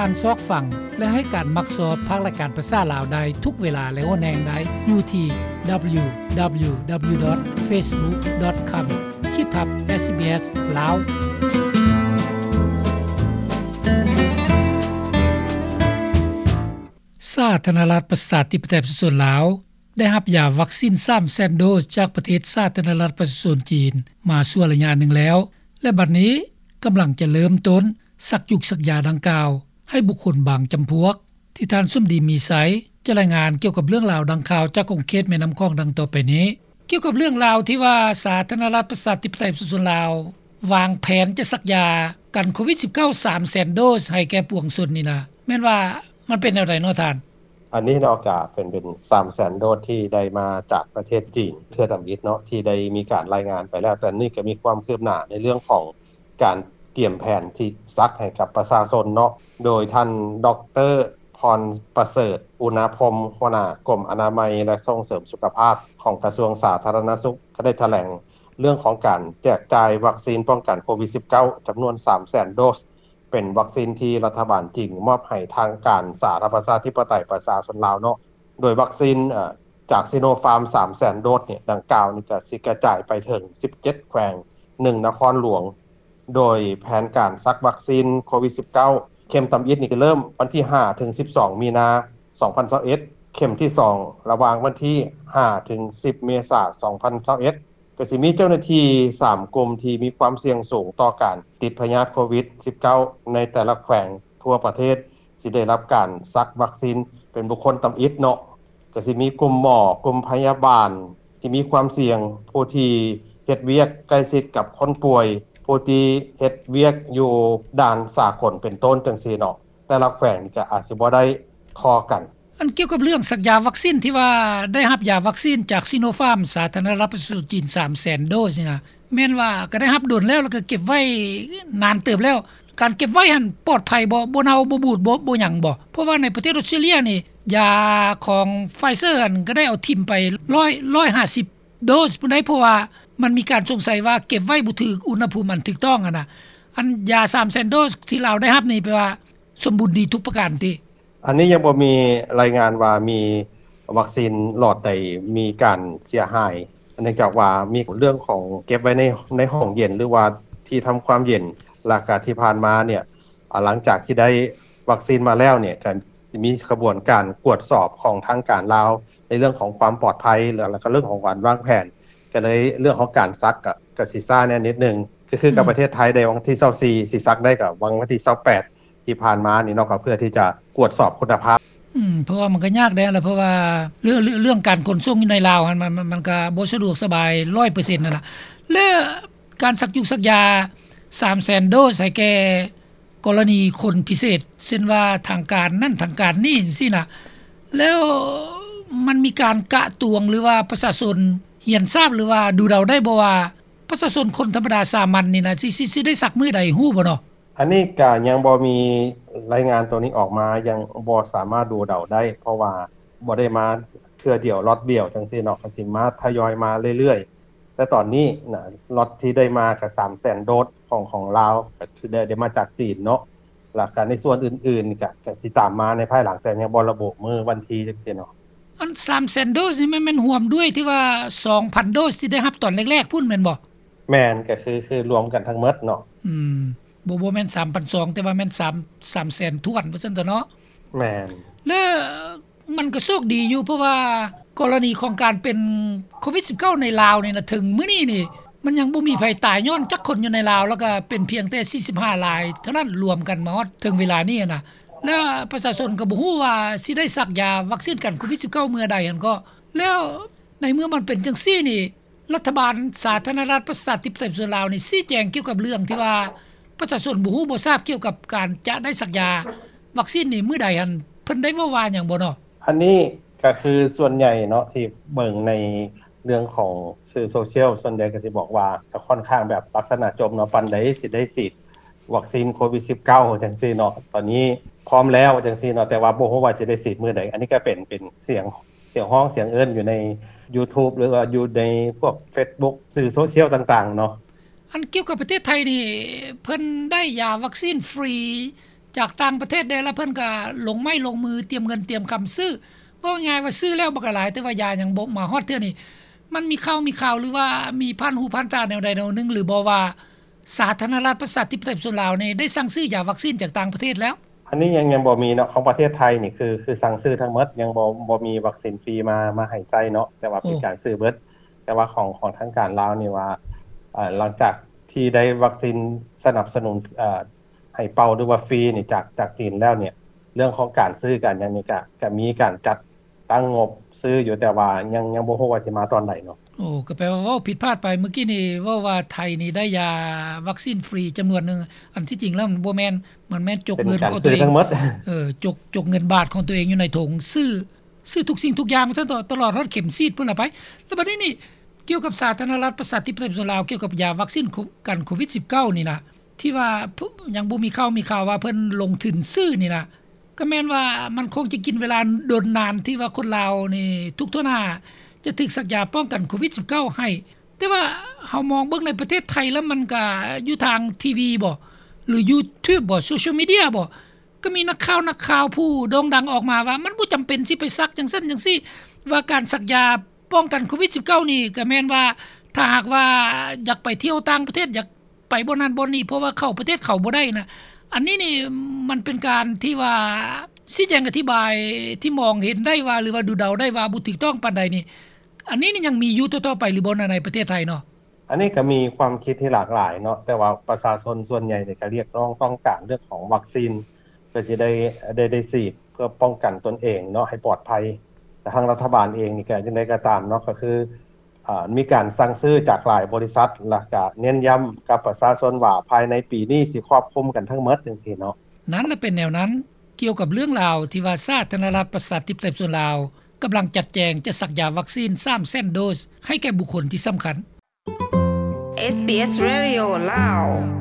ທ່ານຊອກຟັງ ແລະ ໃຫ້ການມັກຊອບພາກລາຍການພາສາລາວໄດ້ທຸກເວລາ ແລະ ຫົວແຮງໄດ້ຢູ່ທີ່ www.facebook.com ຂີດທັບ SBS ລາວ. ສາທາລະນະລັດ ປະຊາທິປະໄຕ ປະຊາຊົນລາວ ໄດ້ຮັບຢາວັກຊີນສາມແສນໂດສຈາກປະເທດສາທາລະນະລັດປະຊາຊົນຈີນມາຊົ່ວໄລຍະໜຶ່ງແລ້ວ ແລະ ບັດນີ້ກຳລັງຈະເລີ່ມຕົ້ນສັກຢູກສັກຢາດັ່ງກ່າວໃຫ້ບຸກຄົນບາງຈຳພວກ ທີ່ທ່ານສົມດີ ມີໄຊ ຈະລາຍງານກ່ຽວກັບເລື່ອງລາວດັ່ງກ່າວຈາກຂົງເຂດແມ່ນ້ຳຂອງດັ່ງຕໍ່ໄປນີ້. ກ່ຽວກັບເລື່ອງລາວທີ່ວ່າສາທາລະນະລັດປະຊາທິປະໄຕປະຊາຊົນລາວ ວາງແຜນຈະສັກຢາກັນໂຄວິດສິບເກົ້າ ສາມແສນໂດສໃຫ້ແກ່ປວງຊົນນີ້ນະ ແມ່ນວ່າມັນເປັນແນວໃດເນາະທ່ານ? ອັນນີ້ເນາະ ກະເປັນ ເປັນສາມແສນໂດສທີ່ໄດ້ມາຈາກປະເທດຈີນເທື່ອທຳອິດເນາະ ທີ່ໄດ້ມີການລາຍງານໄປແລ້ວ, ແຕ່ນີ້ກະມີຄວາມຄືບໜ້າໃນເລື່ອງຂອງການກຽມແຜນທີ່ສັກໃຫ້ກັບປະຊາຊົນເນາະ ໂດຍທ່ານ ດອກເຕີ ພອນປະເສີດ ອຸນາພົມ ຫົວໜ້າກົມອະນາໄມ ແລະ ສົ່ງເສີມສຸຂະພາບຂອງກະຊວງສາທາລະນະສຸກ ກະໄດ້ຖະແຫຼງເລື່ອງຂອງການແຈກຈ່າຍວັກຊີນປ້ອງກັນໂຄວິດສິບເກົ້າ ຈຳນວນສາມແສນໂດສ ເປັນວັກຊີນທີ່ລັດຖະບານຈີນມອບໃຫ້ທາງການສາທາລະນະລັດປະຊາທິປະໄຕປະຊາຊົນລາວເນາະ ໂດຍວັກຊີນ ເອີ ຈາກຊີໂນຟາມ ສາມແສນໂດສນີ້ ດັ່ງກ່າວນີ້ກະຊິກະຈາຍໄປເຖິງສິບເຈັດແຂວງ ໜຶ່ງນະຄອນຫຼວງ ໂດຍແຜນການສັກວັກຊີນໂຄວິດສິບເກົ້າ ເຂັມທຳອິດນີ້ກະເລີ່ມວັນທີຫ້າເຖິງສິບສອງ ມີນາ ສອງພັນຊາວເອັດ ເຂັມທີສອງ ລະຫວ່າງວັນທີຫ້າເຖິງສິບ ເມສາ ສອງພັນຊາວເອັດ ກະຊິມີເຈົ້າໜ້າທີ່ສາມກຸ່ມທີ່ມີຄວາມສ່ຽງສູງຕໍ່ການຕິດພະຍາດໂຄວິດສິບເກົ້າ ໃນແຕ່ລະແຂວງທົ່ວປະເທດ ຊິໄດ້ຮັບການສັກວັກຊີນເປັນບຸກຄົນທຳອິດເນາະ ກະຊິມີກຸ່ມໝໍ, ກຸ່ມພະຍາບານທີ່ມີຄວາມສ່ຽງ, ຜູ້ທີ່ເຮັດວຽກໃກ້ຊິດກັບຄົນປ່ວຍ, ຜູ້ທີ່ເຮັດວຽກຢູ່ດ່ານສາກົນເປັນຕົ້ນ ຈັ່ງຊີ້ເນາະ ແຕ່ລະແຂວງນີ້ກະອາດຊິບໍ່ໄດ້ທໍ່ກັນ. ອັນກ່ຽວກັບເລື່ອງສັກຢາວັກຊີນທີ່ວ່າໄດ້ຮັບຢາວັກຊີນຈາກຊີໂນຟາມ ສາທາລະນະລັດປະຊາຊົນຈີນ ສາມແສນໂດສນີ້ນະ ແມ່ນວ່າກະໄດ້ຮັບດົນແລ້ວ ແລ້ວກະເກັບໄວ້ນານເຕີບແລ້ວ ການເກັບໄວ້ຫັ້ນປອດໄພບໍ່? ບໍ່ເນົ່າບໍ່ບູດບໍ່ ບໍ່ຫຍັງບໍ່? ເພາະວ່າໃນປະເທດອອສເຕຣເລັຽນີ້ ຢາຂອງໄຟເຊີຫັ້ນກະໄດ້ເອົາຖິ້ມໄປຮ້ອຍ ຮ້ອຍຫ້າສິບໂດສພຸ້ນໃດ໋ ເພາະວ່າມັນມີການສົງໄສວ່າເກັບໄວ້ບໍ່ຖືກອຸນຫະພູມອັນຖືກຕ້ອງຫັ້ນນະ. ອັນຢາສາມແສນໂດສທີ່ລາວໄດ້ຮັບນີ້ແປວ່າສົມບູນດີທຸກປະການຕິ? ອັນນີ້ຍັງບໍ່ມີລາຍງານວ່າມີວັກຊີນຫຼອດໃດມີການເສຍຫາຍ ເນື່ອງຈາກວ່າມີເລື່ອງຂອງເກັບໄວ້ໃນ ໃນຫ້ອງເຢັນ ຫຼືວ່າທີ່ທຳຄວາມເຢັນ ແລ້ວກະທີ່ຜ່ານມາເນ່ຍ ອາ ຫຼັງຈາກທີ່ໄດ້ວັກຊີນມາແລ້ວເນ່ຍ ກະຊິມີຂະບວນການກວດສອບຂອງທາງການລາວ ໃນເລື່ອງຂອງຄວາມປອດໄພ ແລ້ວ ແລ້ວກະເລື່ອງຂອງການວາງແຜນ ກະເລີຍເລື່ອງຂອງການສັກກະ ກະຊິຊ້າແດ່ນິດໜຶ່ງ ກະຄືກັບ ອືມ ປະເທດໄທໄດ້ວັນທີຊາວສີ່ ຊິສັກໄດ້ກະວັນທີຊາວແປດ ທີ່ຜ່ານມານີ້ເນາະ ກະເພື່ອທີ່ຈະກວດສອບຄຸນນະພາບ. ອືມ ເພາະວ່າມັນກະຍາກແດ່ລະ ເພາະວ່າເລື່ອງ ເລື່ອງ ເລື່ອງການຂົນສົ່ງຢູ່ໃນລາວຫັ້ນ ມັນ ມັນ ມັນກະບໍ່ສະດວກສະບາຍຮ້ອຍເປີເຊັນຫັ້ນລະ ແລະ ການສັກຢູກສັກຢາສາມແສນໂດສໃຫ້ແກ່ ກໍລະນີຄົນພິເສດ ເຊັ່ນວ່າທາງການນັ້ນທາງການນີ້ຈັ່ງຊີ້ນະ ແລ້ວມັນມີການກະຕວງ ຫຼືວ່າປະຊາຊົນຮຽນຊາບ ຫຼືວ່າດູເດົາໄດ້ບໍ່ວ່າ ປະຊາຊົນຄົນທຳມະດາສາມັນນີ້ນະ ຊິ ຊິ ຊິໄດ້ສັກມື້ໃດ ຮູ້ບໍ່ເນາະ? ອັນນີ້ກະຍັງບໍ່ມີລາຍງານໂຕນີ້ອອກມາ ຍັງບໍ່ສາມາດດູເດົາໄດ້ ເພາະວ່າບໍ່ໄດ້ມາເທື່ອດຽວລັອດດຽວຈັ່ງຊີ້ເນາະ ກະຊິມາທະຍອຍມາເລື້ອຍໆ ແຕ່ຕອນນີ້ນະ ລັອດທີ່ໄດ້ມາກະສາມແສນໂດສຂອງ ຂອງລາວ ກະຖືໄດ້ ໄດ້ມາຈາກຈີນເນາະ ແລ້ວກະໃນສ່ວນອື່ນໆກະ ກະຊິຕາມມາໃນພາຍຫຼັງ ແຕ່ຍັງບໍ່ລະບຸມື້ວັນທີຈັ່ງຊີ້ເນາະ. ອັນສາມແສນໂດສນີ້ແມ່ນ ແມ່ນຮວມດ້ວຍທີ່ວ່າສອງພັນໂດສທີ່ໄດ້ຮັບຕອນແລກໆພຸ້ນແມ່ນບໍ່? ແມ່ນ ກະຄື ຄືລວມກັນທັງໝົດເນາະ. ອືມ ບໍ່ ບໍ່ແມ່ນສາມພັນສອງ ແຕ່ວ່າແມ່ນສາມ ສາມແສນຖ້ວນວ່າຊັ້ນເຖາະເນາະ. ແມ່ນ ແລະ ມັນກະໂຊກດີຢູ່ ເພາະວ່າກໍລະນີຂອງການເປັນໂຄວິດສິບເກົ້າໃນລາວນີ້ນະ ເຖິງມື້ນີ້ນີ້ ມັນຍັງບໍ່ມີໃຜຕາຍຍ້ອນຈັກຄົນຢູ່ໃນລາວ ແລ້ວກະເປັນພຽງແຕ່ສີ່ສິບຫ້າລາຍເທົ່ານັ້ນ ລວມກັນມາຮອດເຖິງເວລານີ້ຫັ້ນນະ ແລະ ປະຊາຊົນກະບໍ່ຮູ້ວ່າຊິໄດ້ສັກຢາວັກຊີນກັນໂຄວິດສິບເກົ້າເມື່ອໃດຫັ້ນເກາະ. ແລ້ວໃນເມື່ອມັນເປັນຈັ່ງຊີ້ນີ້ ລັດຖະບານສາທາລະນະລັດປະຊາທິປະໄຕປະຊາຊົນລາວນີ້ ຊີ້ແຈງກ່ຽວກັບເລື່ອງທີ່ວ່າປະຊາຊົນບໍ່ຮູ້ບໍ່ຊາບກ່ຽວກັບການຈະໄດ້ສັກຢາວັກຊີນນີ້ມື້ໃດຫັ້ນ ເພິ່ນໄດ້ເວົ້າວ່າຫຍັງບໍ່ເນາະ? ອັນນີ້ກະຄືສ່ວນໃຫຍ່ເນາະ ທີ່ເບິ່ງໃນເລື່ອງຂອງສື່ໂຊຊຽວ ສ່ວນໃຫຍ່ກະຊິບອກວ່າ ກະຂ້ອນຂ້າງແບບລັກສະນະຈົ່ມເນາະ ປານໃດຊິໄດ້ສີດວັກຊີນໂຄວິດສິບເກົ້າຈັ່ງຊີ້ເນາະ ຕອນນີ້ພ້ອມແລ້ວຈັ່ງຊີ້ເນາະ ແຕ່ວ່າບໍ່ຮູ້ວ່າຊິໄດ້ສີດມື້ໃດ. ອັນນີ້ກະເປັນ ເປັນສຽງ ສຽງຮ້ອງສຽງເອີ້ນຢູ່ໃນຢູທູບ ຫຼືວ່າຢູ່ໃນພວກເຟສບຸກ ສື່ໂຊຊຽວຕ່າງໆເນາະ. ອັນກ່ຽວກັບປະເທດໄທນີ້ ເພິ່ນໄດ້ຢາວັກຊີນຟຣີ ຈາກຕ່າງປະເທດແດ່ ແລ້ວເພິ່ນກໍລົງໄມ້ລົງມື ຕຽມເງິນຕຽມຄຳຊື້. ເວົ້າງ່າຍໆວ່າຊື້ແລ້ວບັກຫຼາຍ ແຕ່ວ່າຢາຍັງບໍ່ມາຮອດເທື່ອນີ້. ມັນມີຂ່າວມີຄາວ ຫຼືວ່າມີຜ່ານຫູຜ່ານຕາແນວໃດແນວໜຶ່ງ ຫຼືບໍ່ວ່າ ສາທາລະນະລັດປະຊາທິປະໄຕປະຊາຊົນລາວນີ້ ໄດ້ສັ່ງຊື້ຢາວັກຊີນຈາກຕ່າງປະເທດແລ້ວ? ອັນນີ້ຍັງ ຍັງບໍ່ມີເນາະ. ຂອງປະເທດໄທນີ້ ຄື ຄືສັ່ງຊື້ທັງໝົດ, ຍັງບໍ່ ບໍ່ມີວັກຊີນຟຣີມາ ມາໃຫ້ໃຊ້ເນາະ, ແຕ່ວ່າເປັນ ໂອ້ ການຊື້ເບິດ. ແຕ່ວ່າຂອງ ຂອງທາງການລາວນີ້ວ່າ ເອີ ຫຼັງຈາກທີ່ໄດ້ວັກຊີນສະໜັບສະໜູນ ເອີ ໃຫ້ເປົ່າ ຫຼືວ່າຟຣີນີ້ ຈາກ ຈາກຈີນແລ້ວນີ້ ເລື່ອງຂອງການຊື້ການຫຍັງນີ້ ກະ ກະມີການຈັດຕັ້ງງົບຊື້ຢູ່, ແຕ່ວ່າຍັງ ຍັງບໍ່ຮູ້ວ່າຊິມາຕອນໃດເນາະ. ໂອ້ ກໍແປວ່າເວົ້າຜິດພາດໄປ. ມື້ກີ້ນີ້ເວົ້າວ່າໄທນີ້ໄດ້ຢາວັກຊີນຟຣີຈຳນວນໜຶ່ງ, ອັນທີ່ຈິງແລ້ວມັນບໍ່ແມ່ນ, ມັນແມ່ນຈົກເງິນຂອງຕົວເອງ ເອີ ຈົກ ຈົກເງິນບາດຂອງຕົວເອງຢູ່ໃນຖົງ ຊື້ ຊື້ທຸກສິ່ງທຸກຢ່າງຊັ້ນເທາະ ຕະຫຼອດຮອດເຂັມສີດພຸ້ນລະໄປ. ແລ້ວບັດນີ້ນີ້ ກ່ຽວກັບສາທາລະນະລັດປະຊາທິປະໄຕປະຊາຊົນລາວ ກ່ຽວກັບຢາວັກຊີນໂຄ ກັນໂຄວິດສິບເກົ້ານີ້ນະ ທີ່ວ່າ ຍັງບໍ່ມີຂ່າວມີຂ່າວວ່າເພິ່ນລົງທຶນຊື້ນີ້ນະ, ກໍແມ່ນວ່າມັນຄົງຈະກິນເວລາດົນນານ ທີ່ວ່າຄົນລາວນີ້ທຸກທົ່ວໜ້າຈະຖືກສັກຢາປ້ອງກັນໂຄວິດສິບເກົ້າໃຫ້. ແຕ່ວ່າເຮົາມອງເບິ່ງໃນປະເທດໄທແລ້ວ ມັນກະຢູ່ທາງທີວີບໍ ຫຼື YouTube ບໍ ໂຊຊຽວມີເດຍບໍ ກໍມີນັກຂ່າວ ນັກຂ່າວຜູ້ໂດ່ງດັງອອກມາວ່າ ມັນບໍ່ຈຳເປັນຊິໄປສັກຈັ່ງຊັ້ນຈັ່ງຊີ້, ວ່າການສັກຢາປ້ອງກັນໂຄວິດສິບເກົ້ານີ້ ກໍແມ່ນວ່າ ຖ້າຫາກວ່າຢາກໄປທ່ຽວຕ່າງປະເທດ ຢາກໄປບ່ອນນັ້ນບ່ອນນີ້ ເພາະວ່າເຂົ້າປະເທດເຂົາບໍ່ໄດ້ນະ. ອັນນີ້ນີ້ມັນເປັນການທີ່ວ່າຊີ້ແຈງອະທິບາຍທີ່ມອງເຫັນໄດ້ວ່າ ຫຼືວ່າດູເດົາໄດ້ວ່າບໍ່ຖືກຕ້ອງປານໃດນີ້. ອັນນີ້ນີ້ຍັງມີຢູ່ຕໍ່ໆໄປຫຼືບໍ່ ໃນປະເທດໄທເນາະ? ອັນນີ້ກໍມີຄວາມຄິດທີ່ຫຼາກຫຼາຍເນາະ, ແຕ່ວ່າປະຊາຊົນສ່ວນໃຫຍ່ນີ້ກໍຮຽກຮ້ອງຕ້ອງການເລື່ອງຂອງວັກຊີນ ເພື່ອຊິໄດ້ ໄດ້ ໄດ້ສີດເພື່ອປ້ອງກັນຕົນເອງເນາະ ໃຫ້ປອດໄພ. ແຕ່ທາງລັດຖະບານເອງນີ້ກໍຈັ່ງໃດກໍຕາມເນາະ ກໍຄື ເອີ ມີການສັ່ງຊື້ຈາກຫຼາຍບໍລິສັດ ແລ້ວກໍເນັ້ນຢ້ຳກັບປະຊາຊົນວ່າ ພາຍໃນປີນີ້ຊິຄວບຄຸມກັນທັງໝົດຈັ່ງຊີ້ເນາະ. ນັ້ນລະເປັນແນວນັ້ນ. ກ່ຽວກັບເລື່ອງລາວທີ່ວ່າສາທາລະນະລັດປະຊາທິປະໄຕປະຊາຊົນລາວ ກຳລັງຈັດແຈງຈະສັກຢາວັກຊີນສາມແສນໂດສໃຫ້ແກ່ບຸກຄົນທີ່ສຳຄັນ. SBS Radio ລາວ.